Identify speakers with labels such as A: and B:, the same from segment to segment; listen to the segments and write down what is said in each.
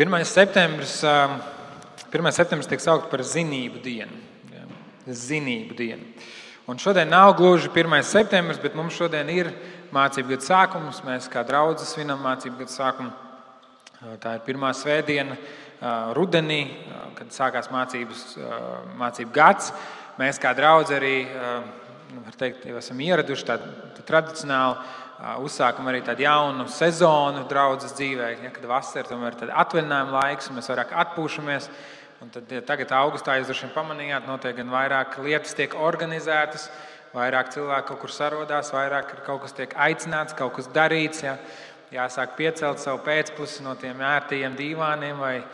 A: 1. septembris tiek saukt par zinību dienu. Ja, zinību dienu. Un šodien nav gluži 1. septembris, bet mums šodien ir mācību gada sākums. Mēs kā draudze svinam mācību gada sākumu. Tā ir pirmā svētdiena rudenī, kad sākās mācību gads. Mēs kā draudze arī, var teikt, jau esam ieraduši tādu tradicionāli uzsākam arī tādu jaunu sezonu draudzes dzīvē, ja, kad vasara tomēr ir atvaļinājuma laiks, un mēs vairāk atpūšamies. Un tad, ja tagad augustā jūs droši vien pamanījāt, notiek gan vairāk lietas tiek organizētas, vairāk cilvēku kaut kur sarodās, vairāk kaut kas tiek aicināts, kaut kas darīts. Ja. Jāsāk piecelt savu pēcplusi no tiem ērtajiem dīvāniem vai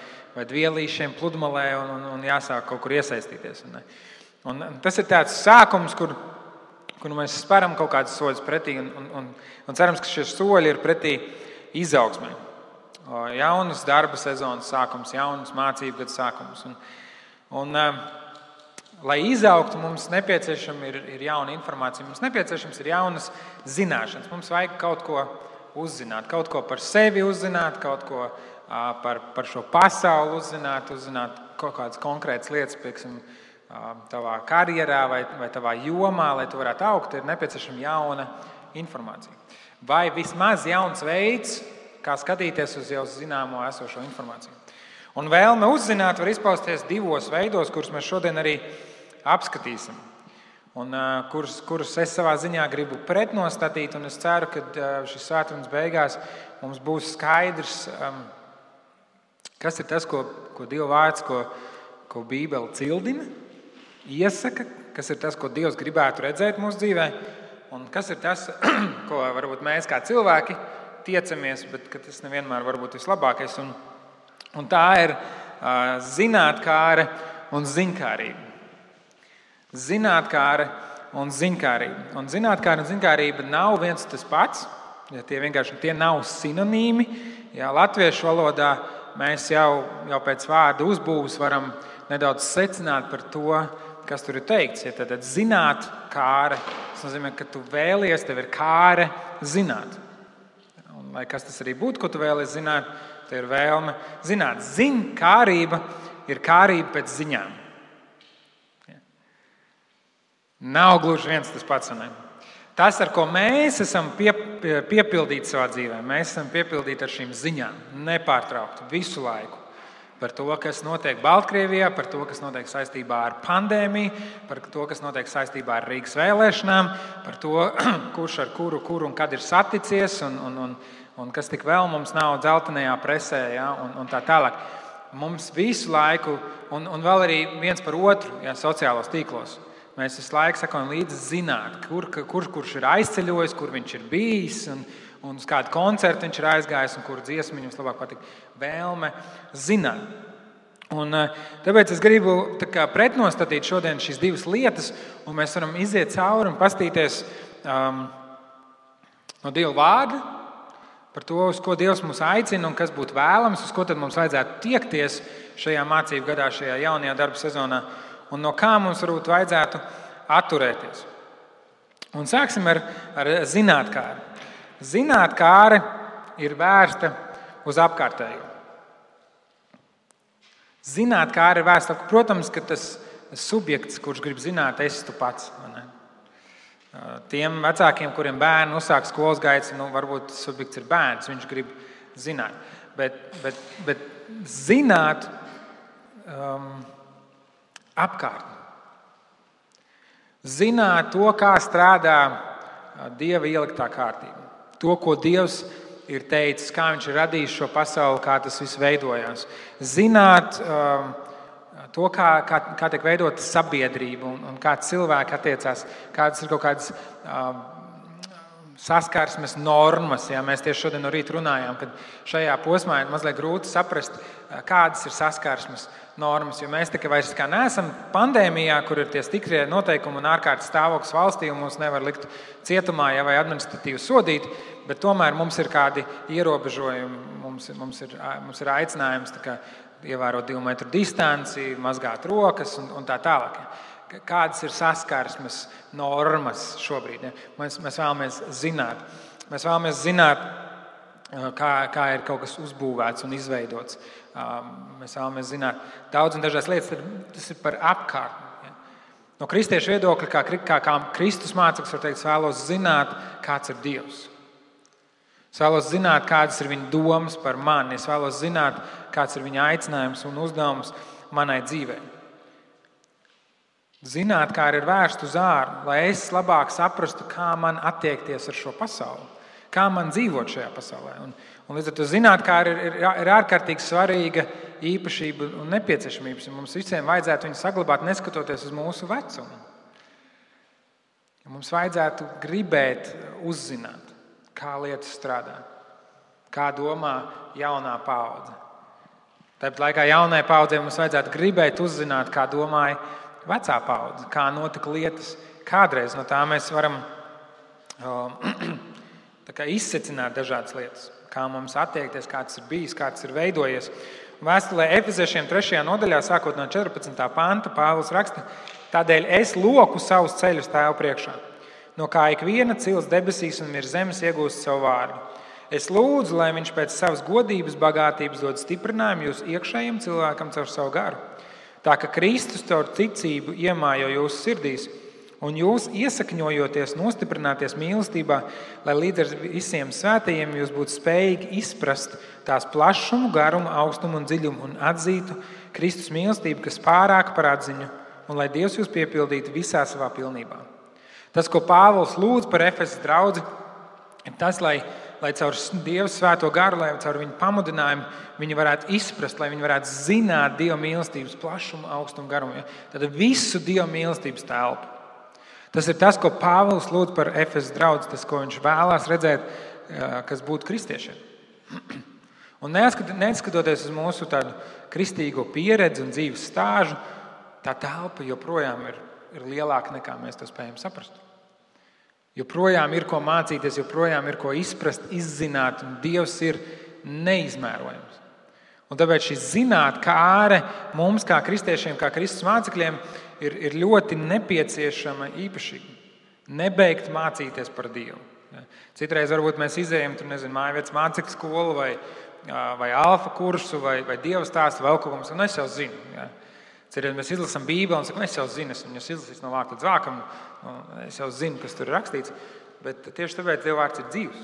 A: dvielīšiem pludmalē un jāsāk kaut kur iesaistīties. Un tas ir tāds sākums, kur mēs speram kaut kādas soļus pretī un cerams, ka šie soļi ir pretī izaugsmai. Jaunas darba sezonas sākums, jaunas mācību gada sākums. Lai izaugtu, mums nepieciešama ir jauna informācija, mums nepieciešams ir jaunas zināšanas. Mums vajag kaut ko uzzināt, kaut ko par sevi uzzināt, kaut ko par šo pasauli uzzināt kaut kādas konkrētas lietas, pieksim, tavā karjerā vai tavā jomā, lai tu varētu augt, ir nepieciešama jauna informācija. Vai vismaz jauns veids, kā skatīties uz jau zināmo esošo informāciju. Un vēlme uzzināt var izpausties divos veidos, kurus mēs šodien arī apskatīsim. Un kurus es savā ziņā gribu pretnostatīt, un es ceru, ka šis svētdienas beigās mums būs skaidrs, kas ir tas, ko Dieva vārds, ko Bībele cildina, iesaka, kas ir tas, ko Dievs gribētu redzēt mūsu dzīvē, un kas ir tas, ko varbūt mēs kā cilvēki tiecamies, bet ka tas nevienmēr var būt vislabākais. Un tā ir zinātkāre un ziņkārība. Zinātkāre un ziņkārība. Un zinātkāre un ziņkārība nav viens tas pats, ja tie nav sinonīmi. Ja latviešu valodā mēs jau pēc vārda uzbūves varam nedaudz secināt par to, kas tur ir teikts. Ja tad zinātkāre, tas nozīmē, ka tu vēlies, tev ir kāre zināt. Un, lai kas tas arī būtu, ko tu vēlies zināt, tev ir vēlme zināt. Ziņkārība ir kārība pēc ziņām. Ja. Nav gluži viens tas pats. Ne? Tas, ar ko mēs esam piepildīti savā dzīvē, mēs esam piepildīti ar šīm ziņām, nepārtraukti, visu laiku. Par to, kas notiek Baltkrievijā, par to, kas notiek saistībā ar pandēmiju, par to, kas notiek saistībā ar Rīgas vēlēšanām, par to, kurš ar kuru un kad ir saticies, un kas tik vēl mums nav dzeltenajā presē, ja, un tā tālāk. Mums visu laiku, un vēl arī viens par otru, ja, sociālos tīklos. Mēs visu laiku sakojam līdzi zināt, kurš ir aizceļojis, kur viņš ir bijis, un uz kādu koncertu viņš ir aizgājis, un kuru dziesmu viņam labāk patīk. Vēlme zināt. Un tāpēc es gribu pretnostatīt šodien šīs divas lietas, un mēs varam iziet cauri un pastīties no Dieva vārda par to, uz ko Dievs mūs aicina un kas būtu vēlams, uz ko tad mums vajadzētu tiekties šajā mācību gadā, šajā jaunajā darba sezonā, un no kā mums varbūt vajadzētu atturēties. Un sāksim ar zinātkāri. Zinātkāre ir vērsta uz apkārtējo. Zinātkāre ir vērsta, protams, ka tas subjekts, kurš grib zināt, esi tu pats. Tiem vecākiem, kuriem bērni uzsāk skolas gaitas, varbūt tas subjekts ir bērns, viņš grib zināt. Bet zināt apkārtni. Zināt to, kā strādā Dieva ieliktā kārtība. To, ko Dievs ir teicis, kā viņš ir radījis šo pasauli, kā tas viss veidojās. Zināt to, kā tiek veidota sabiedrība un kā cilvēki attiecās, kādas ir kaut kādas saskarsmes normas. Ja? Mēs tieši šodien no rīta runājām, ka šajā posmā ir mazliet grūti saprast, kādas ir saskarsmes normas. Jo mēs tikai vairs neesam pandēmijā, kur ir tie stikrie noteikumi un ārkārtas stāvoklis valstī, un mūs nevar likt cietumā vai administratīvi sodīt, bet tomēr mums ir kādi ierobežojumi, mums ir aicinājums ievērot 2 metru distanci, mazgāt rokas un tā tālāk. Kādas ir saskarsmes normas šobrīd? Ja? Mēs vēlamies zināt. Mēs vēlamies zināt, kā ir kaut kas uzbūvēts un izveidots. Mēs vēlamies zināt daudz un dažādas lietas, tad tas ir par apkārtni. No kristiešu viedokļa, kā Kristus māceklis, var teikt, es vēlos zināt, kāds ir Dievs. Es vēlos zināt, kādas ir viņa domas par mani. Es vēlos zināt, kāds ir viņa aicinājums un uzdevums manai dzīvei. Zināt, kā ir vērst uz ārā, lai es labāk saprastu, kā man attiekties ar šo pasauli, kā man dzīvot šajā pasaulē. Un līdz ar to zināt, kā ir ārkārtīgi svarīga īpašība un nepieciešamības. Mums visiem vajadzētu viņu saglabāt, neskatoties uz mūsu vecumu. Mums vajadzētu gribēt uzzināt, kā lietas strādā, kā domā jaunā paudze. Tāpat laikā jaunai paudzei mums vajadzētu gribēt uzzināt, kā domāja vecā paudze, kā notika lietas kādreiz. No tā mēs varam izsecināt dažādas lietas, kā mums attiekties, kā tas ir bijis, kā tas ir veidojies. Vēstulē Efeziešiem 3. nodaļā, sākot no 14. panta, Pāvils raksta: tādēļ es loku savus ceļus Tēva priekšā, no kā ikviena cils debesīs un virs zemes iegūst savu vārdu. Es lūdzu, lai viņš pēc savas godības bagātības dod stiprinājumu jūsu iekšējiem cilvēkam caur savu garu. Tā ka Kristus caur ticību iemājo jūsu sirdīs, un jūs iesakņojoties, nostiprināties mīlestībā, lai līdz ar visiem svētajiem jūs būtu spējīgi izprast tās plašumu, garumu, augstumu un dziļumu un atzītu Kristus mīlestību, kas pārāk par atziņu, un lai Dievs jūs piepildītu visā savā pilnībā. Tas, ko Pāvils lūdz par Efesas draudzi, ir tas, lai caur Dieva svēto garu, lai caur viņu pamudinājumu viņi varētu izprast, lai viņi varētu zināt Dieva mīlestības plašumu, augstumu, garumu. Tad visu Dieva mīlestības telpu. Tas ir tas, ko Pāvils lūdz par Efesas draudzi, tas, ko viņš vēlās redzēt, kas būtu kristiešiem. Un neskatoties uz mūsu tādu kristīgo pieredzi un dzīves stāžu, tā telpa joprojām ir lielāka nekā mēs to spējam saprast. Joprojām ir ko mācīties, joprojām ir ko izprast, izzināt, un Dievs ir neizmērojams. Un tāpēc šī zinātkāre mums, kā kristiešiem, kā Kristus mācekļiem, ir ļoti nepieciešama īpašība. Nebeigt mācīties par Dievu. Citreiz varbūt mēs izējam mājvietas mācekļu skolu vai alfa kursu vai Dieva stāstu vēl kaut ko, un es jau zinu. Ja. Citreiz mēs izlasām Bībeli un sakam, es jau zinu, esmu izlasījis no vārta līdz vākam, es jau zinu, kas tur ir rakstīts, bet tieši tāpēc Dieva vārds ir dzīvs.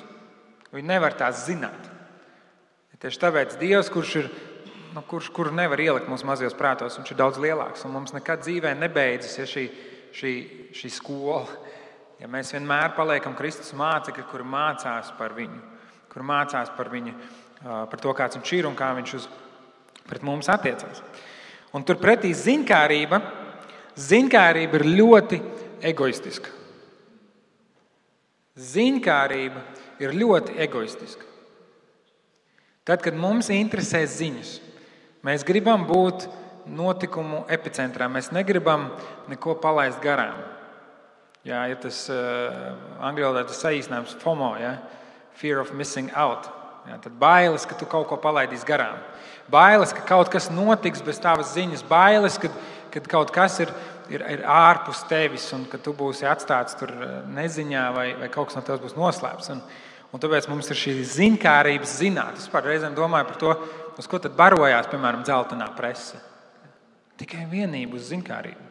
A: Viņi nevar tās zināt. Tieši tāpēc Dievs, kuru nevar ielikt mūsu mazajos prātos, viņš ir daudz lielāks, un mums nekad dzīvē nebeidzas šī skola. Ja mēs vienmēr paliekam Kristus mācekļi, kuri mācās par viņu, kuri mācās par viņu, par to, kāds viņš ir un kā viņš pret mums attiecās. Un turpretī ziņkārība ir ļoti egoistiska. Ziņkārība ir ļoti egoistiska. Tad, kad mums interesē ziņas, mēs gribam būt notikumu epicentrā, mēs negribam neko palaist garām. Jā, ir tas angļu valodā tas saīsinājums FOMO, ja? Fear of missing out. Jā, tad bailes, ka tu kaut ko palaidīsi garām. Bailes, ka kaut kas notiks bez tavas ziņas. Bailes, kad kaut kas ir ārpus tevis un ka tu būsi atstāts tur neziņā vai kaut kas no tevis būs noslēpts. Un tāpēc mums ir šī ziņkārības zināt. Es reizēm domāju par to, uz ko tad barojās, piemēram, dzeltenā prese. Tikai vienību uz ziņkārību.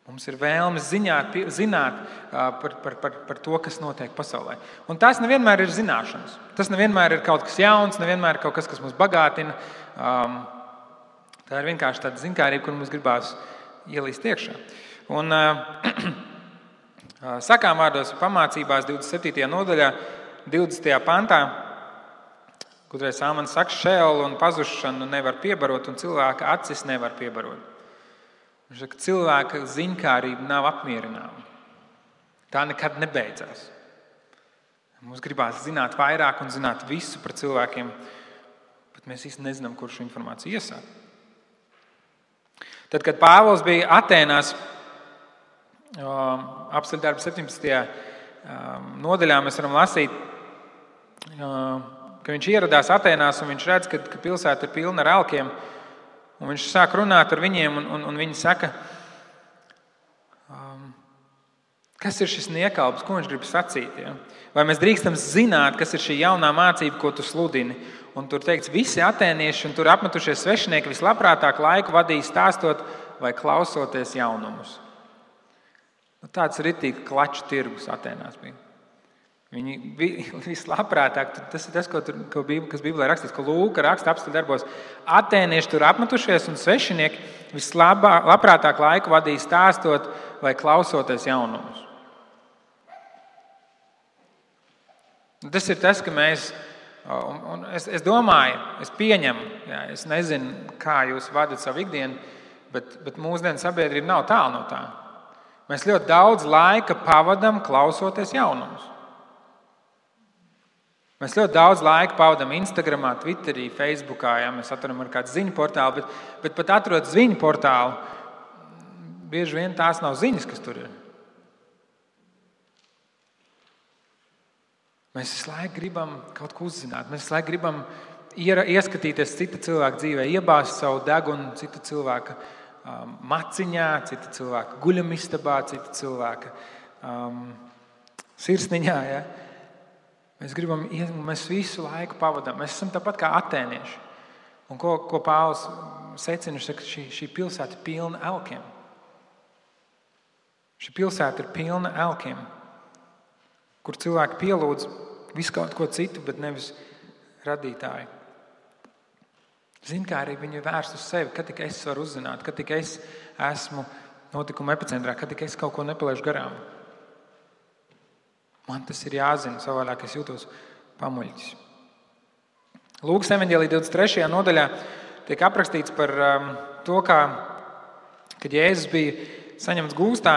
A: Mums ir vēlme zināt par to, kas notiek pasaulē. Un tas nevienmēr ir zināšanas. Tas nevienmēr ir kaut kas jauns, nevienmēr ir kaut kas mūs bagātina. Tā ir vienkārši tāda ziņkārība, kur mums gribās ielīst iekšā. Un sakām vārdos pamācībās 27. nodaļā, 20. pantā, kādreiz Āmans saka, šeolu un pazušanu nevar piebarot un cilvēka acis nevar piebarot. Viņš saka, cilvēka ziņkārība nav apmierināma. Tā nekad nebeidzās. Mums gribās zināt vairāk un zināt visu par cilvēkiem, bet mēs īsti nezinām, kur šo informāciju iesākt. Tad, kad Pāvils bija Atēnās, apceļdarba 17. nodaļā, mēs varam lasīt, ka viņš ieradās Atēnās un viņš redz, ka pilsēta ir pilna ar elkiem. Un viņš sāk runāt ar viņiem, un viņi saka, Kas ir šis niekalps, ko viņš grib sacīt? Ja? Vai mēs drīkstam zināt, kas ir šī jaunā mācība, ko tu sludini? Un tur teikts, visi atēnieši un tur apmetušies svešinieki vislabprātāk laiku vadīja stāstot vai klausoties jaunumus. Tāds ritīgi klaču tirgus Atēnās bija. Viņi vislabprātāk, tas ir tas, kas Bībelē rakstīts, ko Lūka raksta apstuļu darbos. Atēnieši tur apmetušies un svešinieki vislabprātāk laiku vadīja stāstot vai klausoties jaunumus. Tas ir tas, ka mēs, un es domāju, es pieņemu, jā, es nezinu, kā jūs vadat savu ikdienu, bet mūsdienu sabiedrība nav tālu no tā. Mēs ļoti daudz laika pavadam klausoties jaunumus. Mēs ļoti daudz laika pavadam Instagramā, Twitterī, Facebookā, ja mēs atveram ar kādu ziņu portālu, bet pat atrod ziņu portālu, bieži vien tās nav ziņas, kas tur ir. Mēs visu laiku gribam kaut ko uzzināt, mēs visu laiku gribam ieskatīties cita cilvēka dzīvē, iebāzt savu degunu cita cilvēka maciņā, cita cilvēka guļamistabā, cita cilvēka sirsniņā. Ja? Mēs visu laiku pavadām. Mēs esam tāpat kā atēnieši. Un ko Pāvils secina, viņš saka, šī pilsēta ir pilna elkiem. Šī pilsēta ir pilna elkiem, kur cilvēki pielūdz visu kaut ko citu, bet nevis radītāju. Zinkārība viņa ir vērsta uz sevi, kad tik es varu uzzināt, kad tik es esmu notikuma epicentrā, kad tik es kaut ko nepalaižu garām. Man tas ir jāzina, savādāk es jūtos pamuļķis. Lūkas evaņģēlija 23. nodaļā tiek aprakstīts par to, kad Jēzus bija saņemts gūstā,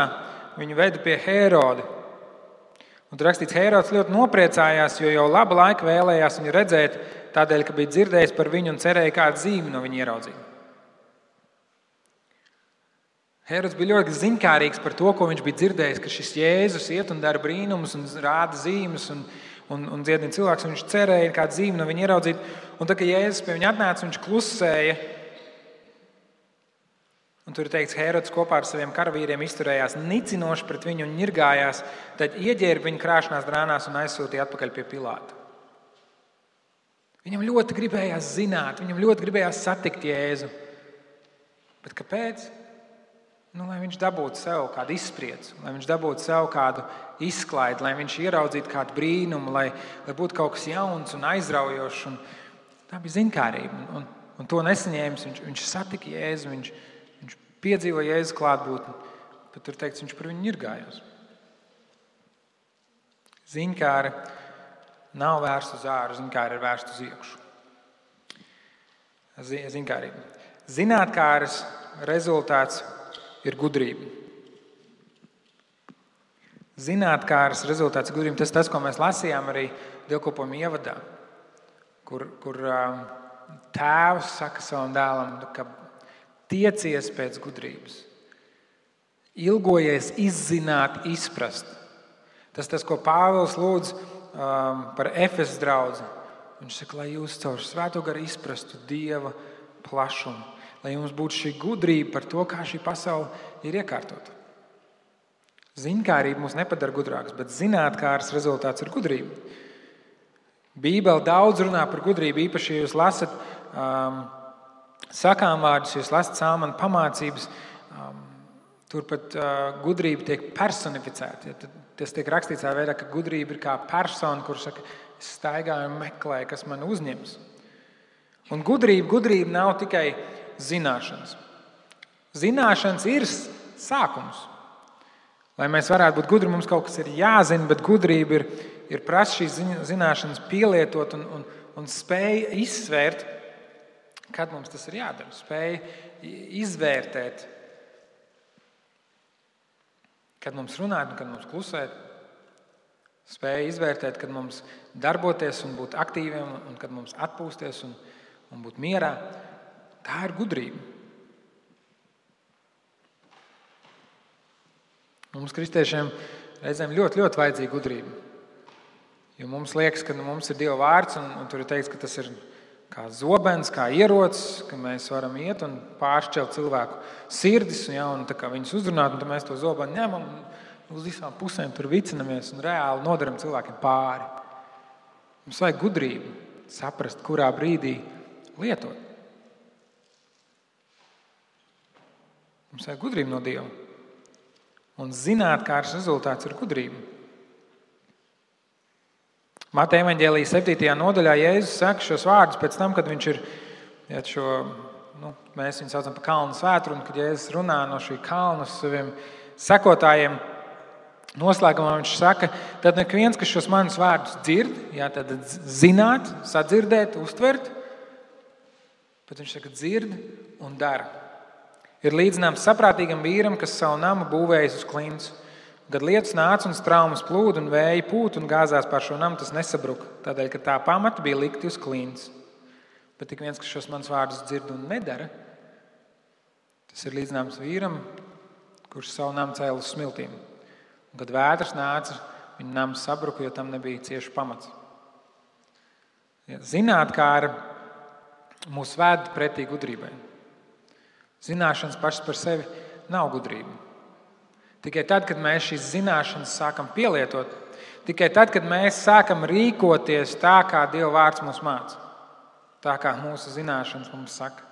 A: viņu veda pie Hēroda. Un tur rakstīts, Hērods ļoti nopriecājās, jo jau labu laiku vēlējās viņu redzēt, tādēļ, ka bija dzirdējis par viņu un cerēja kādu zīmi no viņa ieraudzīt. Hērods bija ļoti ziņkārīgs par to, ko viņš bija dzirdējis, ka šis Jēzus iet un dara brīnumus un rāda zīmes un dziedina cilvēks, un viņš cerēja kādu zīmi no viņa ieraudzīt. Un tad, kad Jēzus pie viņa atnāca, viņš klusēja. Un tur ir teikts, Hērods kopā ar saviem karavīriem izturējās nicinoši pret viņu un ņirgājās, tad ieģērba viņu krāšanās drānās un aizsūtīja atpakaļ pie Pilāta. Viņam ļoti gribējās zināt, viņam ļoti gribējās satikt Jēzu. Bet kāpēc? Lai viņš dabūtu sev kādu izspriedzi, lai viņš dabūtu sev kādu izklaidi, lai viņš ieraudzītu kādu brīnumu, lai būtu kaut kas jauns un aizraujošs. Un tā bija ziņkārība. Un to nesaņēmis, viņš satika Jēzu, viņš piedzīvoja Jēzus klātbūtni, bet tur teikts, viņš par viņu ņirgājās. Ziņkāra nav vērsta uz āru, ziņkāra ir vērsta uz iekšu. Ziņkārība. Zinātkāras rezultāts ir gudrība. Zinātkāras rezultāts ir gudrība. Tas ir tas, ko mēs lasījām arī dievkalpojuma ievadā, kur tēvs saka savam dēlam, ka tiecies pēc gudrības. Ilgojies izzināt, izprast. Tas, ko Pāvils lūdz par Efesas draudzi. Viņš saka, lai jūs caur Svēto garu izprastu Dieva plašumu. Lai jums būtu šī gudrība par to, kā šī pasaule ir iekārtota. Ziņkārība mūs nepadara gudrāks, bet zinātkāras rezultāts ir gudrība. Bībele daudz runā par gudrību, īpaši, ja jūs lasat sakām vārdus, jūs lasat Salmanu pamācības, tur pat gudrība tiek personificēta. Tas tiek rakstīts tā veidā, ka gudrība ir kā persona, kur saka, es staigāju un meklēju, kas man uzņems. Un gudrība nav tikai zināšanas. Zināšanas ir sākums. Lai mēs varētu būt gudri, mums kaut kas ir jāzina, bet gudrība ir prasa šīs zināšanas pielietot un spēja izsvērt, kad mums tas ir jādara, spēja izvērtēt, kad mums runāt un kad mums klusēt, spēja izvērtēt, kad mums darboties un būt aktīviem un kad mums atpūsties un būt mierā. Tā ir gudrība. Mums, kristiešiem, reizēm ļoti, ļoti vajadzīga gudrība. Jo mums liekas, ka mums ir Dieva vārds un tur ir teikts, ka tas ir kā zobens, kā ierocis, ka mēs varam iet un pāršķelt cilvēku sirdis un tā kā viņus uzrunāt, un tad mēs to zobenu ņemam uz visām pusēm tur vicinamies un reāli nodaram cilvēkiem pāri. Mums vajag gudrību saprast, kurā brīdī lietot. Mums vajag gudrību no Dieva. Un zinātkārs rezultāts ir gudrība. Mateja evaņģēlija 7. nodaļā Jēzus saka šos vārdus pēc tam, kad viņš ir mēs viņu saucam par kalnu svētru, un kad Jēzus runā no šī kalna saviem sekotājiem, noslēgumā viņš saka, tad ik viens, kas šos manus vārdus dzird, tad zināt, sadzirdēt, uztvert, bet viņš saka dzird un dara. Ir līdzināms saprātīgam vīram, kas savu namu būvējis uz klints. Kad lietus nāca un straumes plūda un vēja pūt un gāzās pār šo namu, tas nesabruka, tādēļ, ka tā pamata bija likti uz klints. Bet tik viens, kas šos manus vārdus dzird un nedara, tas ir līdzināms vīram, kurš savu namu cēla uz smiltīm. Un, kad vētras nāca, viņa nams sabruka, jo tam nebija cieši pamats. Zinātkāra mūs ved pretī gudrībai. Zināšanas pašas par sevi nav gudrība. Tikai tad, kad mēs šīs zināšanas sākam pielietot, tikai tad, kad mēs sākam rīkoties tā, kā Dieva vārds mūs māca, tā kā mūsu zināšanas mums saka,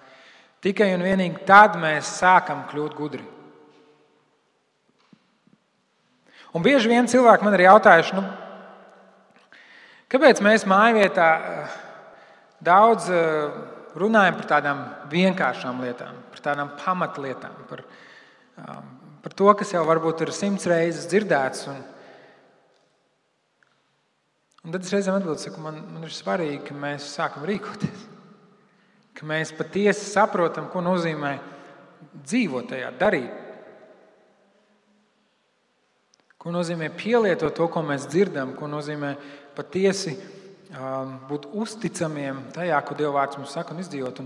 A: tikai un vienīgi tad mēs sākam kļūt gudri. Un bieži vien cilvēki man ir jautājuši, kāpēc mēs mājvietā daudz runājam par tādām vienkāršām lietām, par tādām pamatlietām, par to, kas jau varbūt ir 100 reizes dzirdēts. Un tad es reizēm atbildu, man ir svarīgi, ka mēs sākam rīkoties, ka mēs patiesi saprotam, ko nozīmē dzīvot tajā, darīt. Ko nozīmē pielietot to, ko mēs dzirdam, ko nozīmē patiesi būt uzticamiem tajā, ko Dieva vārds mums saka un izdzīvot.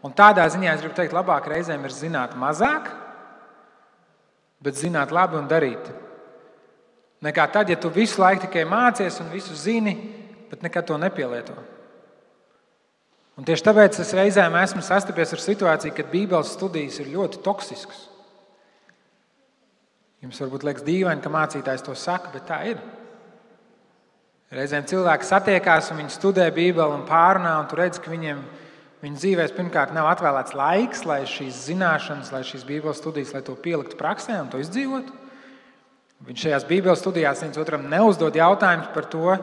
A: Un tādā ziņā es gribu teikt, labāk reizēm ir zināt mazāk, bet zināt labi un darīt. Nekā tad, ja tu visu laiku tikai mācies un visu zini, bet nekad to nepielieto. Un tieši tāpēc es reizēm esmu sastapies ar situāciju, kad Bībeles studijas ir ļoti toksiskas. Jums varbūt liekas dīvaini, ka mācītājs to saka, bet tā ir. Reizēm cilvēki satiekās un viņi studē Bībeli un pārunā, un tu redzi, ka viņu dzīvēs pirmkārt nav atvēlēts laiks, lai šīs zināšanas, lai šīs Bībeles studijas, lai to pieliktu praksē un to izdzīvotu. Viņš šajās Bībeles studijās viens otram neuzdod jautājumus par to,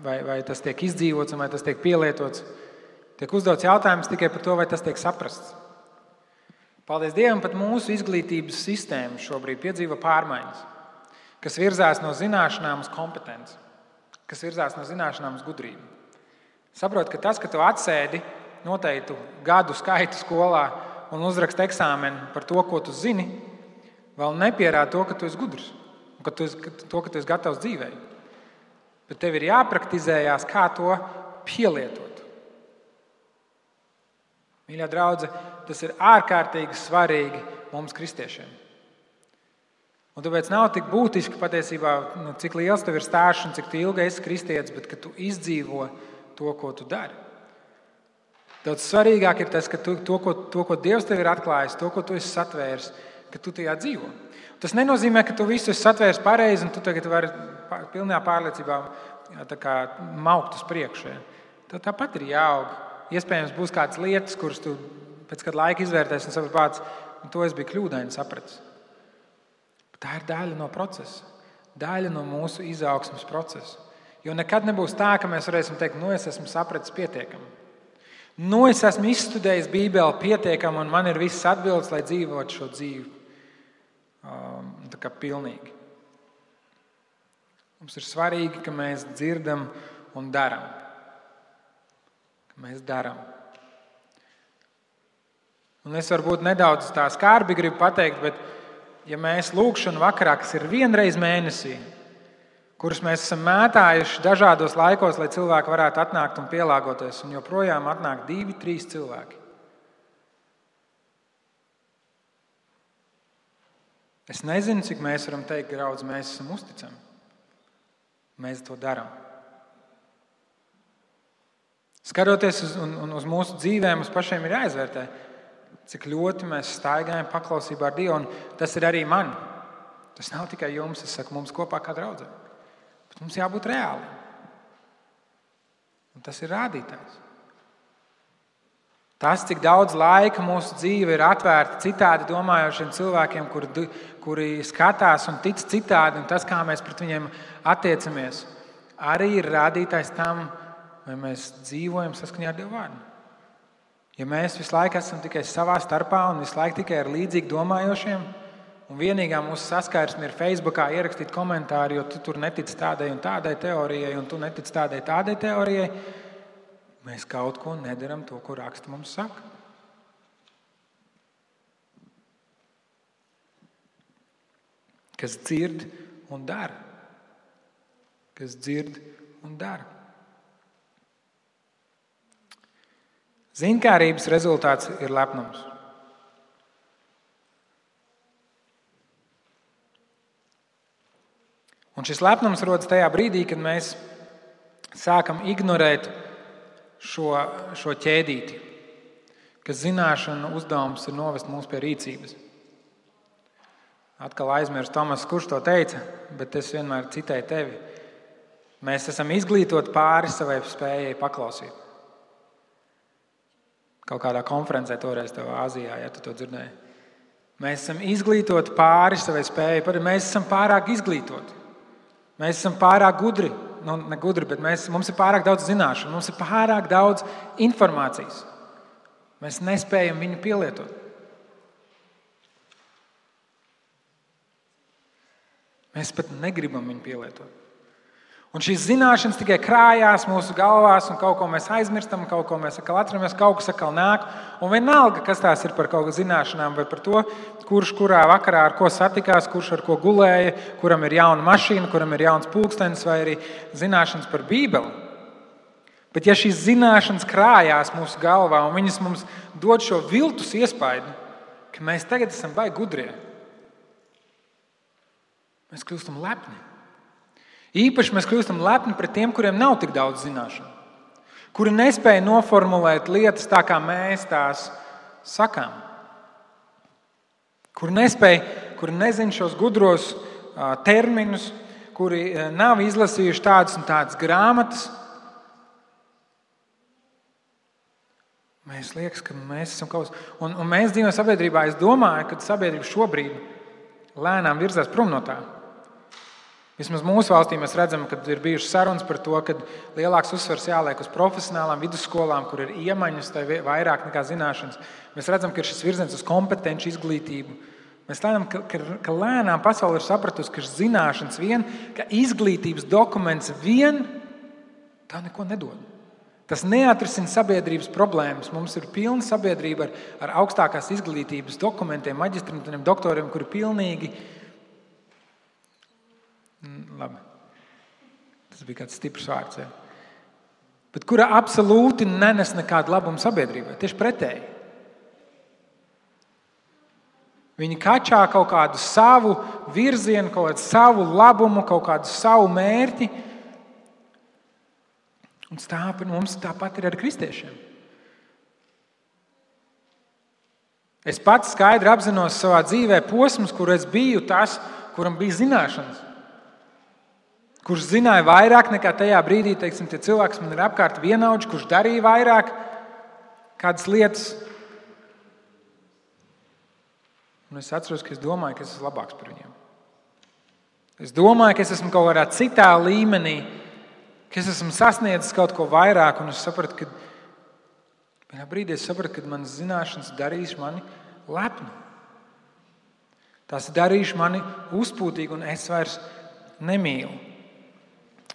A: vai tas tiek izdzīvots un vai tas tiek pielietots. Tiek uzdots jautājums tikai par to, vai tas tiek saprasts. Paldies Dievam, pat mūsu izglītības sistēma šobrīd piedzīvo pārmaiņas, kas virzās no zināšanām uz kompetenci, kas virzās no zināšanām uz gudrību. Saprot, ka tas, ka tu atsēdi noteiktu gadu skaitu skolā un uzraksti eksāmenu par to, ko tu zini, vēl nepierāda to, ka tu esi gudrs un ka tu esi gatavs dzīvei. Bet tev ir jāpraktizējās, kā to pielietot. Mīļā draudze, tas ir ārkārtīgi svarīgi mums kristiešiem. Un tāpēc nav tik būtiski patiesībā, cik liels tev ir stāsts un cik ilgi esi kristietis, bet ka tu izdzīvo to, ko tu dari. Daudz svarīgāk ir tas, ka to, ko Dievs tev ir atklājis, to, ko tu esi satvēris, ka tu tajā dzīvo. Tas nenozīmē, ka tu visu esi satvēris pareizi un tu tagad vari pilnā pārliecībā maukt uz priekšu. Tev tāpat ir jāaug. Iespējams, būs kādas lietas, kuras tu pēc kāda laika izvērtēsi un saprati, to es biju kļūdaini sapratis. Tā ir daļa no procesa, daļa no mūsu izaugsmes procesa. Jo nekad nebūs tā, ka mēs varēsim teikt, es esmu sapratis pietiekami. Es esmu izstudējis Bībeli pietiekami un man ir viss atbildes, lai dzīvotu šo dzīvi pilnīgi. Mums ir svarīgi, ka mēs dzirdam un daram. Mēs darām. Un es varbūt nedaudz tā skarbi gribu pateikt, bet ja mēs lūgšanu vakarā, kas ir vienreiz mēnesī, kurus mēs esam mētājuši dažādos laikos, lai cilvēki varētu atnākt un pielāgoties, un joprojām atnāk 2-3 cilvēki. Es nezinu, cik mēs varam teikt, draudz, mēs esam uzticami. Mēs to darām. Skatoties uz mūsu dzīvēm, mums pašiem ir jāizvērtē, cik ļoti mēs staigājam paklausībā ar Dievu. Un tas ir arī man. Tas nav tikai jums, es saku, mums kopā kā draudzē. Bet mums jābūt reāli. Un tas ir rādītājs. Tas, cik daudz laika mūsu dzīve ir atvērta citādi domājošiem cilvēkiem, kuri skatās un tic citādi, un tas, kā mēs pret viņiem attiecamies, arī ir rādītājs tam, vai mēs dzīvojam saskaņā ar Dieva vārdu. Ja mēs visu laiku esam tikai savā starpā un visu laiku tikai ar līdzīgi domājošiem, un vienīgā mūsu saskarsme ir Facebookā ierakstīt komentāri, jo tu tur netici tādai un tādai teorijai, un tu netici tādai teorijai, mēs kaut ko nedaram to, ko raksti mums saka. Kas dzird un dara. Kas dzird un dara. Ziņkārības rezultāts ir lepnums. Un šis lepnums rodas tajā brīdī, kad mēs sākam ignorēt šo ķēdīti, ka zināšanu uzdevums ir novest mūs pie rīcības. Atkal aizmirst Tomas, kurš to teica, bet es vienmēr citēju tevi. Mēs esam izglītoti pāri savai spējai paklausīt. Kaut kādā konferencē toreiz tev Āzijā, ja tu to dzirdēji. Mēs esam izglītoti pāri savai spējai, mēs esam pārāk izglītoti. Mēs esam pārāk gudri. Ne gudri, bet mums ir pārāk daudz zināšanu, mums ir pārāk daudz informācijas. Mēs nespējam viņu pielietot. Mēs pat negribam viņu pielietot. Un šīs zināšanas tikai krājās mūsu galvās, un kaut ko mēs aizmirstam, kaut ko mēs atkal atceramies, kaut kas atkal nāk. Un vienalga, kas tās ir par kaut kādu zināšanām, vai par to, kurš kurā vakarā ar ko satikās, kurš ar ko gulēja, kuram ir jauna mašīna, kuram ir jauns pulkstenis, vai arī zināšanas par Bībeli. Bet ja šīs zināšanas krājās mūsu galvā, un viņas mums dod šo viltus iespaidu, ka mēs tagad esam baigi gudrie, mēs kļūstam lepni. Īpaši mēs kļūstam lepni pret tiem, kuriem nav tik daudz zināšanu, kuri nespēja noformulēt lietas tā, kā mēs tās sakām, kuri nezina šos gudros terminus, kuri nav izlasījuši tādas un tādas grāmatas. Mēs liekas, ka mēs esam kaut kas. Un mēs dzīvojam sabiedrībā. Es domāju, ka sabiedrība šobrīd lēnām virzās prom no tā. Vismaz mūsu valstī mēs redzam, ka ir bijušas sarunas par to, ka lielāks uzsvars jāliek uz profesionālām vidusskolām, kur ir iemaņas, tai vairāk nekā zināšanas. Mēs redzam, ka ir šis virziens uz kompetenci izglītību. Mēs redzam, ka lēnām pasaule ir sapratusi, ka zināšanas vien, ka izglītības dokuments vien tā neko nedod. Tas neatrisina sabiedrības problēmas. Mums ir pilna sabiedrība ar augstākās izglītības dokumentiem, maģistrantiem, doktoriem, kuri pilnīgi... Labi. Tas bija kāds stiprs vārds. Ja. Bet kura absolūti nenes nekādu labumu sabiedrībai. Tieši pretēji. Viņi kačā kaut kādu savu virzienu, kaut kādu savu labumu, kaut kādu savu mērķi. Un mums tāpat ir ar kristiešiem. Es pats skaidri apzinos savā dzīvē posmus, kur es biju tas, kuram bija zināšanas. Kurš zināja vairāk nekā tajā brīdī, teiksim, tie cilvēki, kas man ir apkārt vienaudži, kurš darīja vairāk kādas lietas. Un es atceros, ka es domāju, ka es esmu labāks par viņiem. Es domāju, ka es esmu kaut kādā citā līmenī, ka es esmu sasniedzis kaut ko vairāk, un es sapratu, ka vienā brīdī ka manas zināšanas darīs mani lepnu. Tās darīs mani uzpūtīgu, un es vairs nemīlu.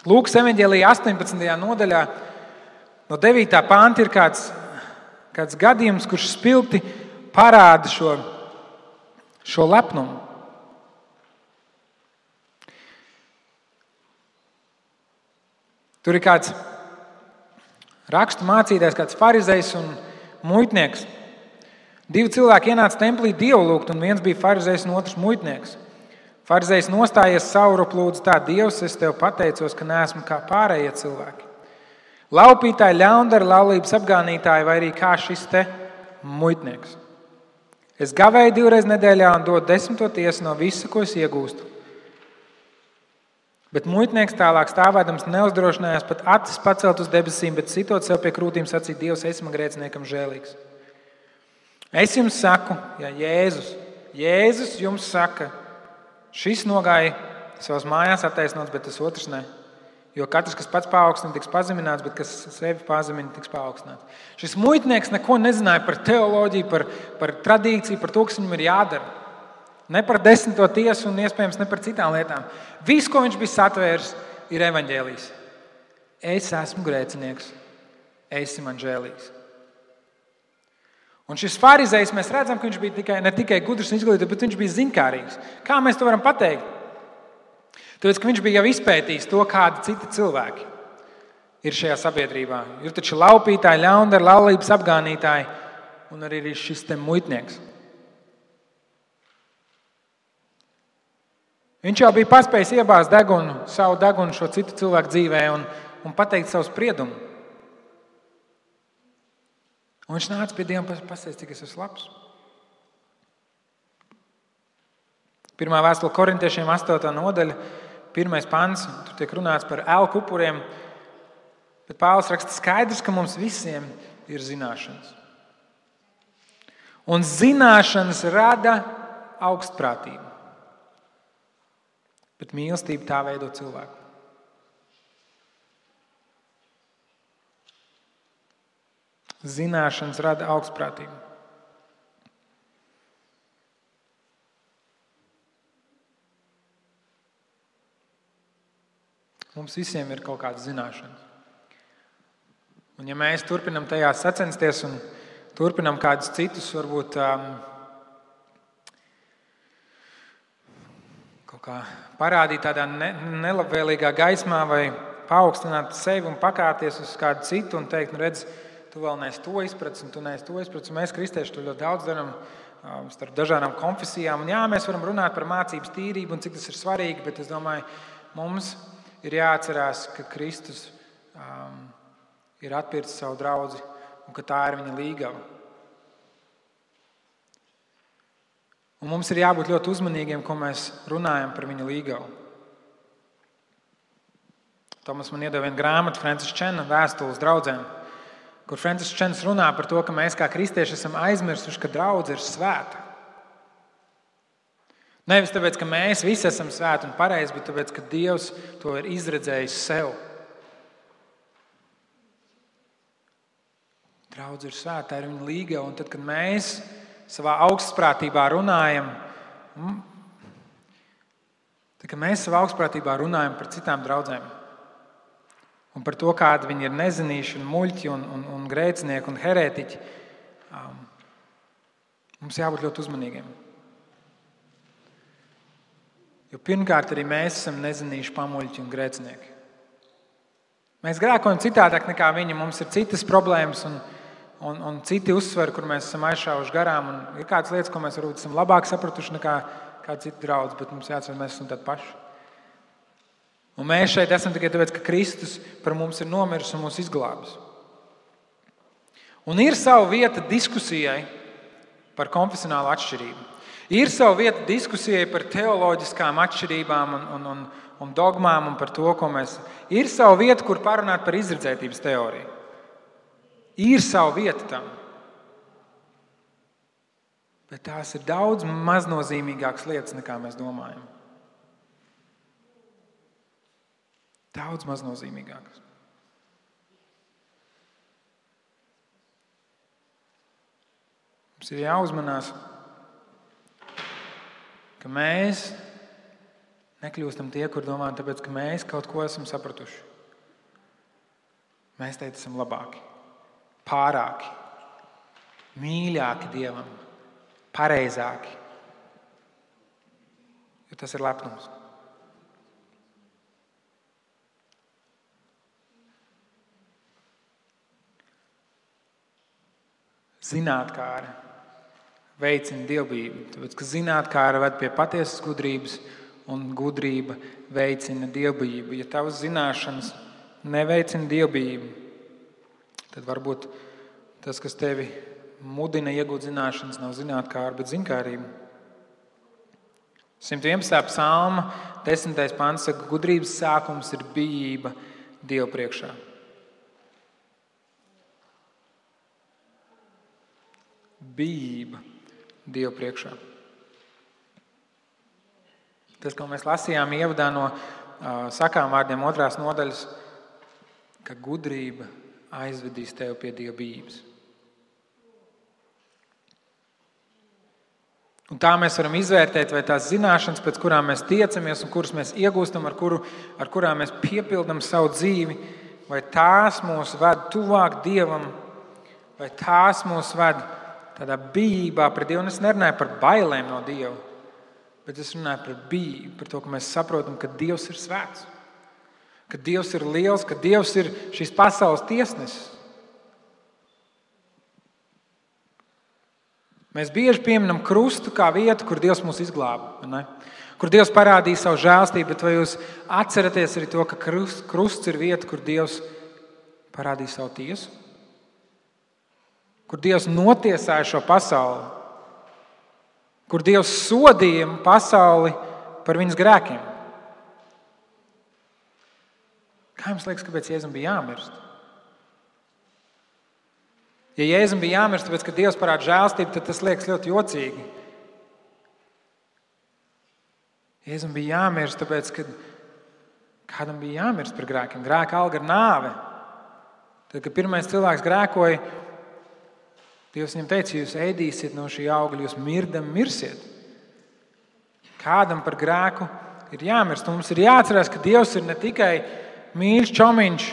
A: Lūkas evaņģēlijā 18. nodaļā no 9. panta ir kāds gadījums, kurš spilgti parāda šo lepnumu. Tur ir kāds rakstu mācītājs, kāds farizejs un muitnieks. 2 cilvēki ienāca templī Dievu lūgt, un viens bija farizejs un otrs muitnieks. Farizejs nostājies saurup lūdzu tā: Dievs, es tev pateicos, ka neesmu kā pārējie cilvēki. Laupītāji, ļaundari, laulības apgānītāji vai arī kā šis te muitnieks. Es gavēju 2 reizes nedēļā un dodu 10. tiesu no visa, ko es iegūstu. Bet muitnieks tālāk stāvēdams neuzdrošinājās pat acis pacelt uz debesīm, bet sitot sev pie krūtīm sacīja: Dievs, esi man grēciniekam žēlīgs. Es jums saku, ja Jēzus jums saka, šis nogāja savas mājās attaisnots, bet tas otrs ne. Jo katrs, kas pats paaugstina, tiks pazemināts, bet kas sevi pazemina, tiks paaugstināts. Šis muitnieks neko nezināja par teoloģiju, par tradīciju, par to, kas viņam ir jādara. Ne par 10. tiesu un iespējams ne par citām lietām. Viss, ko viņš bija satvēris, ir evaņģēlijs. Es esmu grēcinieks, esi man žēlīgs. Un šis farizejs, mēs redzam, ka viņš bija ne tikai gudrs un izglītots, bet viņš bija zinkārīgs. Kā mēs to varam pateikt? Tāpēc, ka viņš bija jau izpētījis to, kādi citi cilvēki ir šajā sabiedrībā. Ir taču laupītāji, ļaundari, laulības apgānītāji un arī šis te muitnieks. Viņš jau bija paspējis iebāzt savu degunu šo citu cilvēku dzīvē un pateikt savu spriedumu. Un viņš nāca pie Dieva un pasaka, cik es esmu labs. Pirmā vēstule Korintiešiem 8. nodaļa, 1. pants, tur tiek runāts par elku upuriem, bet Pāvils raksta skaidrs, ka mums visiem ir zināšanas. Un zināšanas rada augstprātību, bet mīlestība tā veido cilvēku. Zināšanas rada augstprātību. Mums visiem ir kaut kādas zināšanas. Un ja mēs turpinam tajās sacensties un turpinam kādus citus, varbūt kaut kā parādīt tādā nelabvēlīgā gaismā vai paaugstināt sevi un pakāpties uz kādu citu un teikt, redz, tu vēl neesi to izpratis un tu neesi to izpratis. Mēs, kristieši, to ļoti daudz darām starp dažādām konfesijām. Un jā, mēs varam runāt par mācības tīrību un cik tas ir svarīgi, bet es domāju, mums ir jāatcerās, ka Kristus ir atpircis savu draudzi un ka tā ir viņa līgava. Un mums ir jābūt ļoti uzmanīgiem, ko mēs runājam par viņa līgavu. Tomas man iedeva vienu grāmatu, Francis Čena vēstules draudzēm, kur Francis Čens runā par to, ka mēs kā kristieši esam aizmirsuši, ka draudze ir svēta. Nevis tāpēc, ka mēs visi esam svēti un pareizi, bet tāpēc, ka Dievs to ir izredzējis sev. Draudze ir svēta, tā ir viņa līgava, un tad, kad mēs savā augstprātībā runājam, par citām draudzēm un par to, kādi viņi ir nezinīši un muļķi un grēcinieki un herētiķi, mums jābūt ļoti uzmanīgiem. Jo pirmkārt arī mēs esam nezinīši pamuļķi un grēcinieki. Mēs grēkojam citādāk nekā viņi, mums ir citas problēmas un citi uzsveri, kur mēs esam aizšāvuši garām. Un ir kādas lietas, ko mēs varbūt esam labāk sapratuši nekā kādi citi draudzi, bet mums jāatcer, mēs esam tādi paši. Un mēs šeit esam tikai tāpēc, ka Kristus par mums ir nomiris un mūs izglābis. Un ir sava vieta diskusijai par konfesionālu atšķirību. Ir sava vieta diskusijai par teoloģiskām atšķirībām un dogmām un par to, ko mēs... Ir sava vieta, kur parunāt par izredzētības teoriju. Ir sava vieta tam. Bet tās ir daudz maznozīmīgākas lietas, nekā mēs domājam. Daudz maznozīmīgākas. Mums ir jāuzmanās, ka mēs nekļūstam tie, kur domājam, tāpēc, ka mēs kaut ko esam sapratuši. Mēs teikt, esam labāki, pārāki, mīļāki Dievam, pareizāki. Jo tas ir lepnums. Zinātkāri veicina dievbijību, tāpēc, ka zinātkāri ved pie patiesas gudrības un gudrība veicina dievbijību. Ja tavas zināšanas neveicina dievbijību, tad varbūt tas, kas tevi mudina iegūt zināšanas, nav zinātkāra, bet ziņkārība. 111. psalma 10. pants saka, gudrības sākums ir bijība Dievu priekšā. Bijība Dievu priekšā. Tas, ko mēs lasījām ievadā no sakām vārdiem 2. nodaļas, ka gudrība aizvedīs tevi pie Dieva bijības. Un tā mēs varam izvērtēt, vai tās zināšanas, pēc kurām mēs tiecamies un kuras mēs iegūstam, ar kurām mēs piepildam savu dzīvi, vai tās mūs ved tuvāk Dievam, vai tās mūs ved tādā bijībā pret Dievu. Un es nerunāju par bailēm no Dieva, bet es runāju par bijību, par to, ka mēs saprotam, ka Dievs ir svēts, ka Dievs ir liels, ka Dievs ir šīs pasaules tiesnesis. Mēs bieži pieminam krustu kā vietu, kur Dievs mūs izglāba, ne? Kur Dievs parādīja savu žēlstību, bet vai jūs atceraties arī to, ka krusts ir vieta, kur Dievs parādīja savu tiesu? Kur Dievs notiesāja šo pasauli? Kur Dievs sodīja pasauli par viņas grēkiem? Kā jums liekas, kāpēc Jēzum bija jāmirst? Ja Jēzum bija jāmirst, tāpēc, ka Dievs parāda žēlstību, tad tas liekas ļoti jocīgi. Jēzum bija jāmirst, tāpēc, ka kādam bija jāmirst par grēkiem. Grēka alga ir nāve. Tad, kad pirmais cilvēks grēkoja, Dievs viņam teica, ja jūs ēdīsiet no šī augļa, jūs mirdam mirsiet. Kādam par grēku ir jāmirst. Un mums ir jāatcerās, ka Dievs ir ne tikai mīļš čomiņš,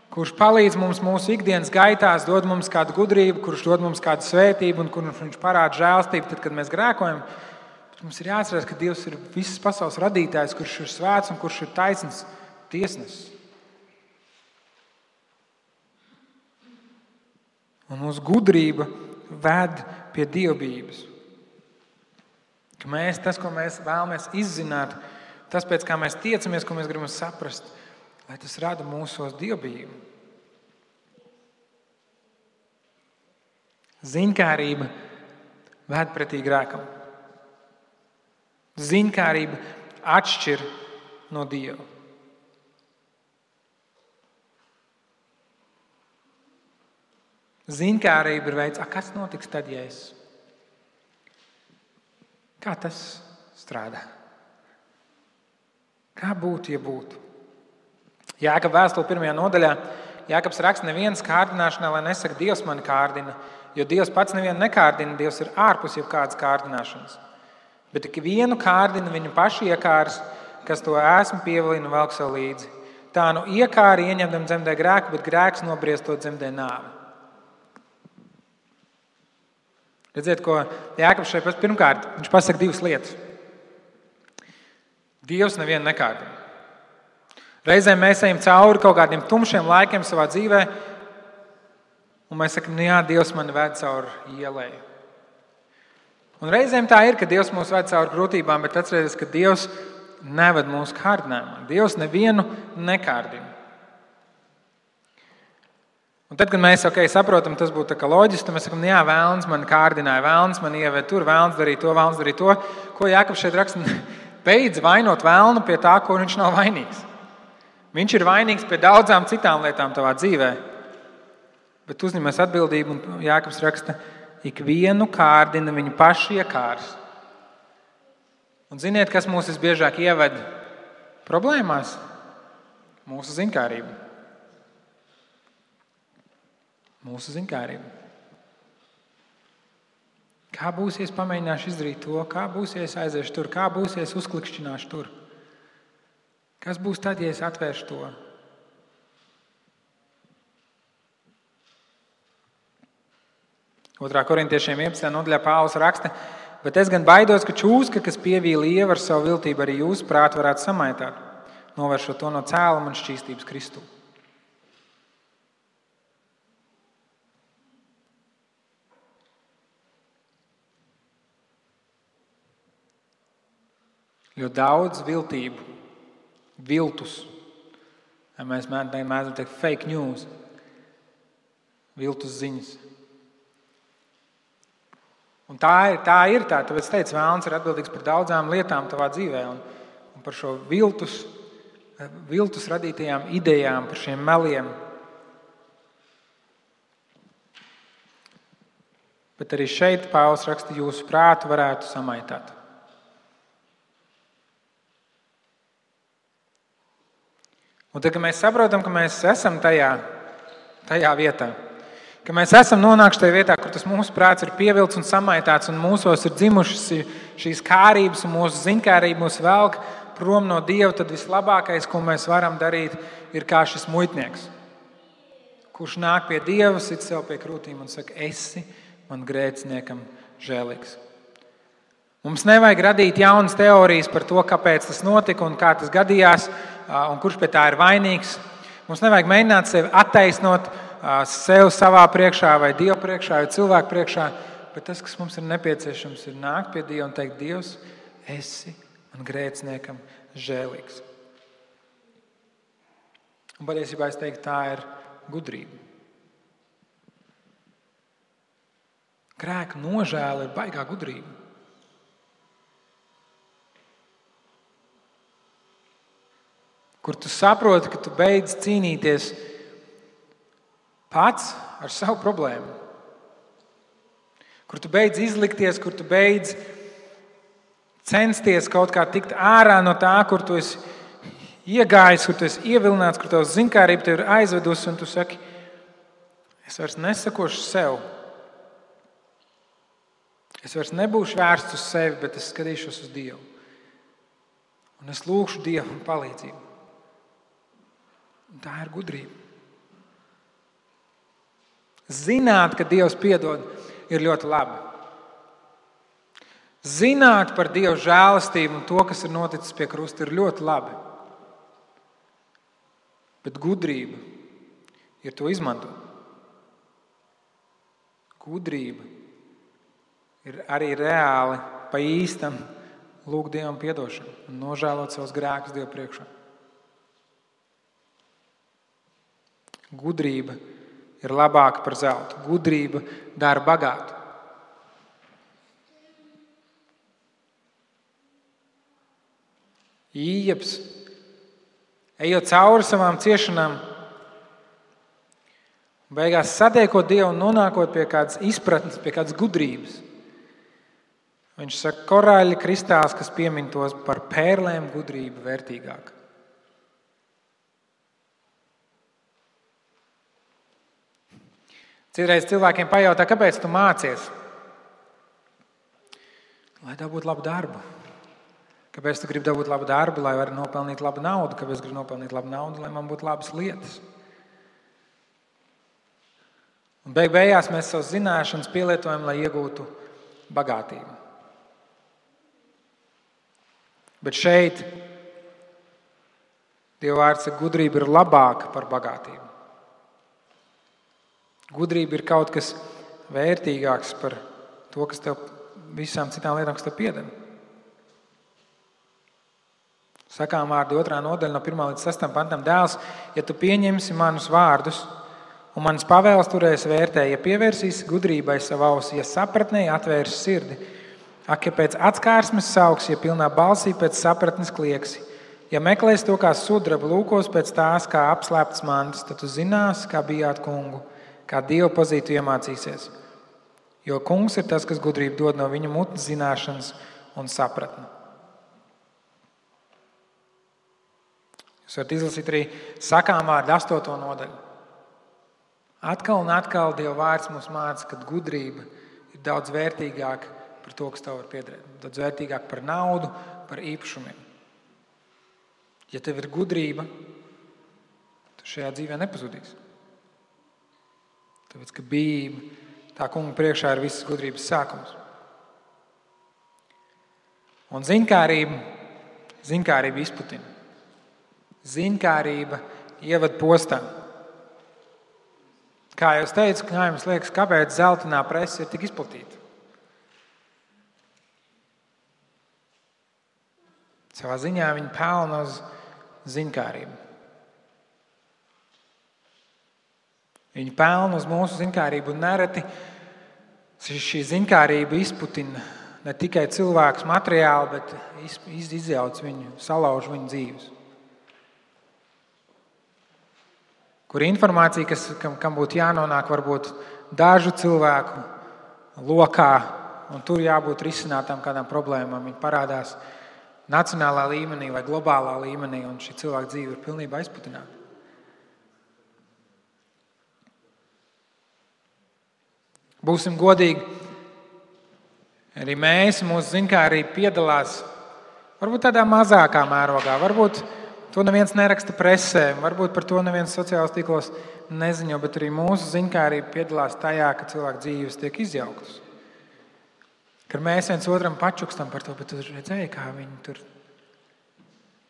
A: kurš palīdz mums mūsu ikdienas gaitās, dod mums kādu gudrību, kurš dod mums kādu svētību un kurš viņš parāda žēlstību, tad, kad mēs grēkojam. Bet mums ir jāatcerās, ka Dievs ir visas pasaules radītājs, kurš ir svēts un kurš ir taisns tiesnesis. Un mūsu gudrība ved pie dievbijības. Ka mēs, tas, ko mēs vēlamies izzināt, tas, pēc kā mēs tiecamies, ko mēs gribam saprast, lai tas rada mūsos dievbijību. Ziņkārība ved pretī grēkam. Ziņkārība atšķir no Dieva. Ziņkārība ir veids, kas notiks tad, ja es? Kā tas strādā? Kā būtu, ja būtu? Jākaba vēstule 1. nodaļā. Jākabs raksta, neviens kārdināšanā, lai nesaka, Dievs mani kārdina, jo Dievs pats nevienu nekārdina, Dievs ir ārpus jebkādas kārdināšanas. Bet tik vienu kārdina viņu paši iekārs, kas to esmu pievilina un velk sev līdzi. Tā nu iekāri ieņemdam dzemdē grēku, bet grēks nobriestot dzemdē nāvi. Redziet, ko Jākabs šeit pirmkārt, viņš pasaka divas lietas. Dievs nevienu nekārdina. Reizēm mēs ejam cauri kaut kādiem tumšiem laikiem savā dzīvē, un mēs sakam, jā, Dievs mani ved cauri ielai. Un reizēm tā ir, ka Dievs mūs ved cauri grūtībām, bet atcerieties, ka Dievs neved mūsu kārdinājumā. Dievs nevienu nekārdina. Un tad, kad mēs saprotam, tas būtu tā kā loģiski, tad mēs sakam, jā, vēlns man kārdināja, vēlns man ieved tur, vēlns darīja to, vēlns darīja to. Ko Jākabs šeit raksta? Beidz vainot vēlnu pie tā, ko viņš nav vainīgs. Viņš ir vainīgs pie daudzām citām lietām tavā dzīvē. Bet uzņemies atbildību, un Jākabs raksta, ikvienu kārdina viņu paši iekārs. Un ziniet, kas mūs visbiežāk ieved problēmās? Mūsu ziņkārība. Mūsu ziņkārība. Kā būs, ja es pamēģināšu izdarīt to? Kā būs, ja es aiziešu tur? Kā būs, ja es uzklikšķināšu tur? Kas būs tad, ja es atvēršu to? Otrā korintiešiem 11. nodaļā Pāvils raksta, bet es gan baidos, ka čūska, kas pievīla ievu ar savu viltību, arī jūsu prātu varētu samaitāt, novēršot to no cēluma un šķīstības Kristū. Ļoti daudz viltību, viltus, mēs mēdzam teikt fake news, viltus ziņas. Un tā ir. Tāpēc es teicu, vēlns ir atbildīgs par daudzām lietām tavā dzīvē. Un par šo viltus radītajām idejām, par šiem meliem. Bet arī šeit Pāvils raksta, jūsu prātu varētu samaitāt. Un tad, kad mēs saprotam, ka mēs esam tajā vietā, ka mēs esam nonākuši tajā vietā, kur tas mūsu prāts ir pievilts un samaitāts, un mūsos ir dzimušas šīs kārības un mūsu ziņkārība mūs velk prom no Dieva, tad vislabākais, ko mēs varam darīt, ir kā šis muitnieks, kurš nāk pie Dieva, sit sev pie krūtīm un saka, esi man grēciniekam žēlīgs. Mums nevajag radīt jaunas teorijas par to, kāpēc tas notika un kā tas gadījās, un kurš pie tā ir vainīgs. Mums nevajag mēģināt sevi attaisnot sev savā priekšā vai Dieva priekšā vai cilvēku priekšā, bet tas, kas mums ir nepieciešams, ir nākt pie Dieva un teikt, Dievs, esi man grēciniekam žēlīgs. Un patiesībā es teiktu, tā ir gudrība. Grēka nožēla ir baigā gudrība. Kur tu saproti, ka tu beidz cīnīties pats ar savu problēmu. Kur tu beidz izlikties, kur tu beidz censties kaut kā tikt ārā no tā, kur tu esi iegājis, kur tu esi ievilināts, kur tavs ziņkārība tevi ir aizvedusi, un tu saki, es vairs nesakošu sev. Es vairs nebūšu vērsts uz sevi, bet es skatīšos uz Dievu. Un es lūgšu Dievu palīdzību. Un tā ir gudrība. Zināt, ka Dievs piedod, ir ļoti labi. Zināt par Dieva žēlastību un to, kas ir noticis pie krusta, ir ļoti labi. Bet gudrība ir to izmantot. Gudrība ir arī reāli pa īstam lūgt Dievam piedošanu un nožēlot savus grēkus Dievu priekšā. Gudrība ir labāka par zeltu. Gudrība dara bagātu. Ījebs, ejot cauri savām ciešanām, beigās satiekot Dievu un nonākot pie kādas izpratnes, pie kādas gudrības. Viņš saka, korāļa kristāls, kas piemin tos par pērlēm gudrība vērtīgāka. Citreiz cilvēkiem pajautā, kāpēc tu mācies? Lai dabūtu labu darbu. Kāpēc tu gribi dabūt labu darbu, lai varētu nopelnīt labu naudu? Kāpēc es gribu nopelnīt labu naudu, lai man būtu labas lietas? Un beigās mēs savas zināšanas pielietojam, lai iegūtu bagātību. Bet šeit Dieva vārds saka, gudrība ir labāka par bagātību. Gudrība ir kaut kas vērtīgāks par to, kas tev visām citām lietām, kas tev pieder. Sakām vārdi 2. nodaļa no 1. līdz 6. pantam. Dēls, ja tu pieņemsi manus vārdus un manas pavēles turēsi vērtē, ja pievērsīsi gudrībai savu ausi, ja sapratnēji atvērsi sirdi, ak, ja pēc atskārsmes sauks, ja pilnā balsī pēc sapratnes klieksi, ja meklēsi to kā sudrabu, lūkos pēc tās kā apslēptas mantas, tad tu zināsi, kā bijāt kungu, kā Dievu pazītu iemācīsies. Jo kungs ir tas, kas gudrību dod no viņa mutnes zināšanas un sapratni. Jūs varat izlasīt arī sakām vārdu 8. nodaļu. Atkal un atkal Dieva vārds mums māca, ka gudrība ir daudz vērtīgāka par to, kas tev var piederēt. Daudz vērtīgāka par naudu, par īpašumiem. Ja tev ir gudrība, tu šajā dzīvē nepazudīsi. Tāpēc, ka bijība tā kunga priekšā ir visas gudrības sākums. Un ziņkārība izputina. Ziņkārība ievada postā. Kā jau es teicu, kā jums liekas, kāpēc zeltainā prese ir tik izplatīta? Savā ziņā viņi pelna uz ziņkārību. Viņi pelna uz mūsu ziņkārību un nereti Šī ziņkārība izputina ne tikai cilvēkus materiāli, bet izjauc viņu, salauž viņu dzīves. Kur informācija, kam būtu jānonāk varbūt dažu cilvēku lokā, un tur jābūt risinātām kādām problēmām, viņi parādās nacionālā līmenī vai globālā līmenī, un šī cilvēka dzīve ir pilnībā izputināta. Būsim godīgi, arī mēs, mūsu ziņkārība piedalās varbūt tādā mazākā mērogā, varbūt to neviens neraksta presē, varbūt par to neviens sociālos tīklos neziņo, bet arī mūsu ziņkārība piedalās tajā, ka cilvēku dzīves tiek izjauktas. Kad mēs viens otram pačukstam par to, bet tu redzēji, kā viņi tur,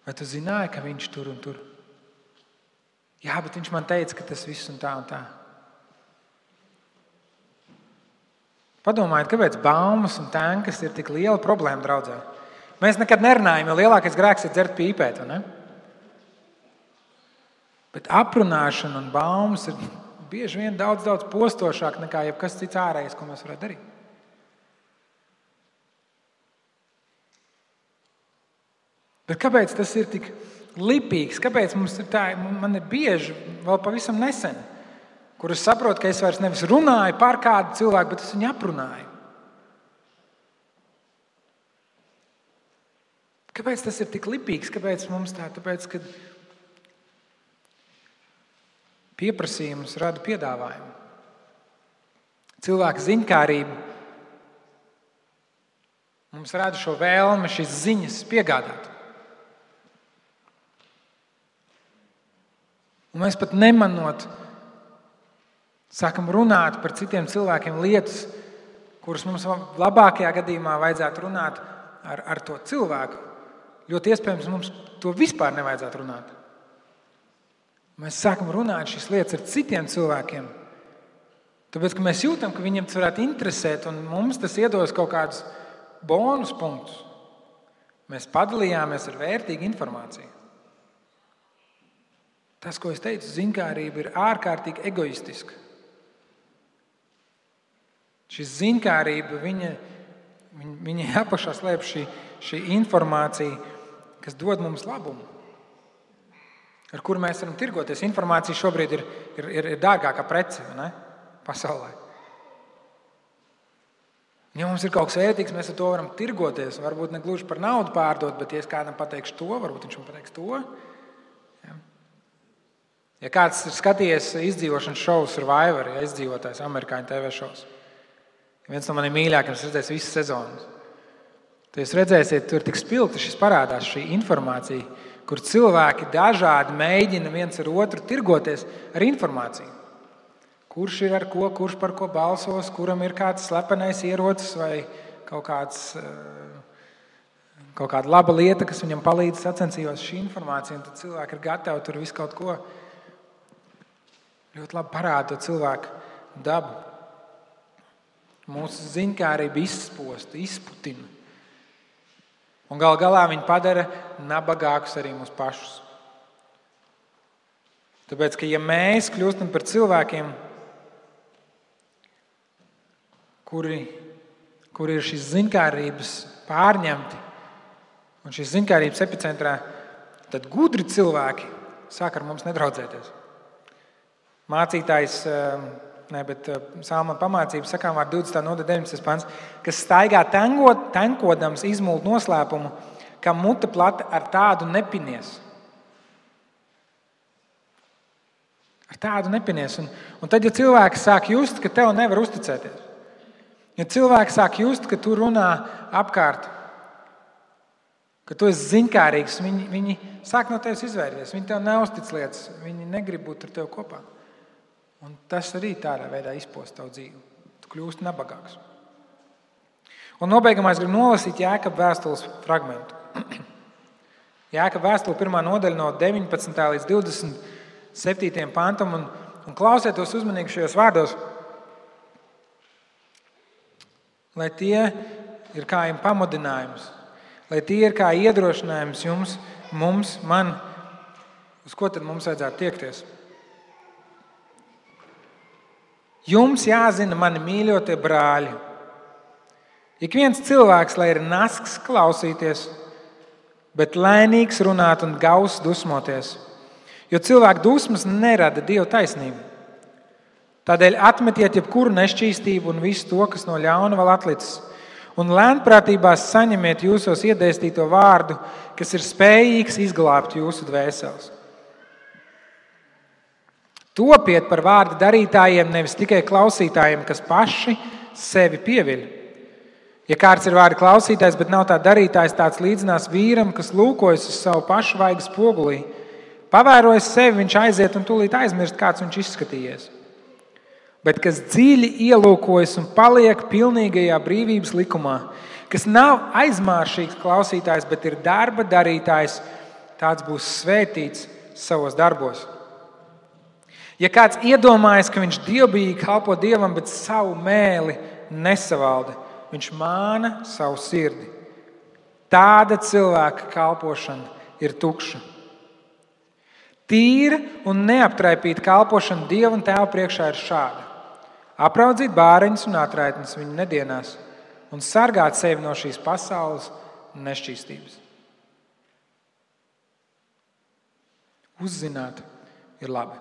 A: vai tu zināji, ka viņš tur un tur? Jā, bet viņš man teica, ka tas viss un tā un tā. Padomājiet, kāpēc baumas un tenkas ir tik liela problēma draudzē. Mēs nekad nerunājam, jo lielākais grēks ir dzert pīpēt, ne? Bet aprunāšana un baumas ir bieži vien daudz postošāk nekā jebkas cits ārējais, ko mēs varētu darīt. Bet kāpēc tas ir tik lipīgs? Kāpēc mums ir tā? Man ir bieži, vēl pavisam nesen, kur es saprotu, ka es vairs nevis runāju par kādu cilvēku, bet es viņu aprunāju. Kāpēc tas ir tik lipīgs? Kāpēc mums tā? Tāpēc, ka pieprasījums rada piedāvājumu. Cilvēka ziņkārība mums rada šo vēlmi, šīs ziņas piegādāt. Un mēs pat nemanot sākam runāt par citiem cilvēkiem lietas, kuras mums labākajā gadījumā vajadzētu runāt ar to cilvēku. Ļoti iespējams, mums to vispār nevajadzētu runāt. Mēs sākam runāt šīs lietas ar citiem cilvēkiem, tāpēc, ka mēs jūtam, ka viņiem tas varētu interesēt, un mums tas iedos kaut kādus bonus punktus. Mēs padalījāmies ar vērtīgu informāciju. Tas, ko es teicu, ziņkārība ir ārkārtīgi egoistiska. Šī ziņkārība, viņa apakšā slēp šī informācija, kas dod mums labumu, ar kuru mēs varam tirgoties. Informācija šobrīd ir dārgākā prece, ne? Pasaulē. Ja mums ir kaut kas vērtīgs, mēs ar to varam tirgoties. Varbūt ne gluži par naudu pārdot, bet ja es kādam pateikšu to, varbūt viņš man pateiks to. Ja kāds ir skatījies izdzīvošanas šovu Survivor, ja izdzīvotājs amerikāņu TV šovs, viens no maniem mīļākajiem, es redzēju visas sezonas. Tad jūs redzēsiet, tur tik spilgti šis parādās šī informācija, kur cilvēki dažādi mēģina viens ar otru tirgoties ar informāciju. Kurš ir ar ko, kurš par ko balsos, kuram ir kāds slepenais ierocis vai kaut kāda laba lieta, kas viņam palīdz sacensījos šī informācija, un tad cilvēki ir gatavi tur visu kaut ko. Ļoti labi parāda to cilvēku dabu. Mūsu ziņkārība izsposta, izputina. Un gal galā viņi padara nabagākus arī mūs pašus. Tāpēc, ka ja mēs kļūstam par cilvēkiem, kuri ir šīs ziņkārības pārņemti un šīs ziņkārības epicentrā, tad gudri cilvēki sāk ar mums nedraudzēties. Mācītājs, Salma pamācības sakām vārdu 20. nodaļa 19. pants, kas staigā tenkodams izmult noslēpumu, kam mute plata ar tādu nepinies. Ar tādu nepinies. Un tad, ja cilvēks sāk just, ka tev nevar uzticēties, ja cilvēks sāk just, ka tu runā apkārt, ka tu esi ziņkārīgs, viņi sāk no tevis izvairīties, viņi tev neuztic lietas, viņi negrib būt ar tevi kopā. Un tas arī tādā veidā izposta tavu dzīvi. Tu kļūsti nabagāks. Un nobeigumā es gribu nolasīt Jākaba vēstules fragmentu. Jākaba vēstule 1. nodaļa no 19. līdz 27. pantam. Un klausieties uzmanīgi šajos vārdos, lai tie ir kā jums pamudinājums, lai tie ir kā iedrošinājums jums, man, uz ko tad mums vajadzētu tiekties. Jums jāzina, mani mīļotie brāļi. Ik viens cilvēks, lai ir nasks klausīties, bet lēnīgs runāt un gauss dusmoties, jo cilvēku dusmas nerada Dieva taisnību. Tādēļ atmetiet jebkuru nešķīstību un visu to, kas no ļauna vēl atlicis, un lēnprātībās saņemiet jūsos iedēstīto vārdu, kas ir spējīgs izglābt jūsu dvēseles. Topiet par vārda darītājiem, nevis tikai klausītājiem, kas paši sevi pieviļ. Ja kāds ir vārda klausītājs, bet nav tā darītājs, tāds līdzinās vīram, kas lūkojas uz savu pašu vaigas spogulī. Pavērojas sevi, viņš aiziet un tūlīt aizmirst, kāds viņš izskatījies. Bet kas dziļi ielūkojas un paliek pilnīgajā brīvības likumā, kas nav aizmāršīgs klausītājs, bet ir darba darītājs, tāds būs svētīts savos darbos. Ja kāds iedomājas, ka viņš dievbijīgi kalpo Dievam, bet savu mēli nesavalda, viņš māna savu sirdi. Tāda cilvēka kalpošana ir tukša. Tīra un neaptraipīta kalpošana Dieva un Tēva priekšā ir šāda. Apraudzīt bāreņus un atraitnes viņu nedienās un sargāt sevi no šīs pasaules nešķīstības. Uzzināt ir labi.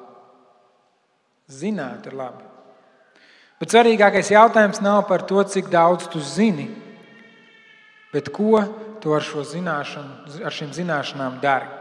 A: Zināt ir labi. Bet svarīgākais jautājums nav par to, cik daudz tu zini, bet ko tu ar šīm zināšanām dari.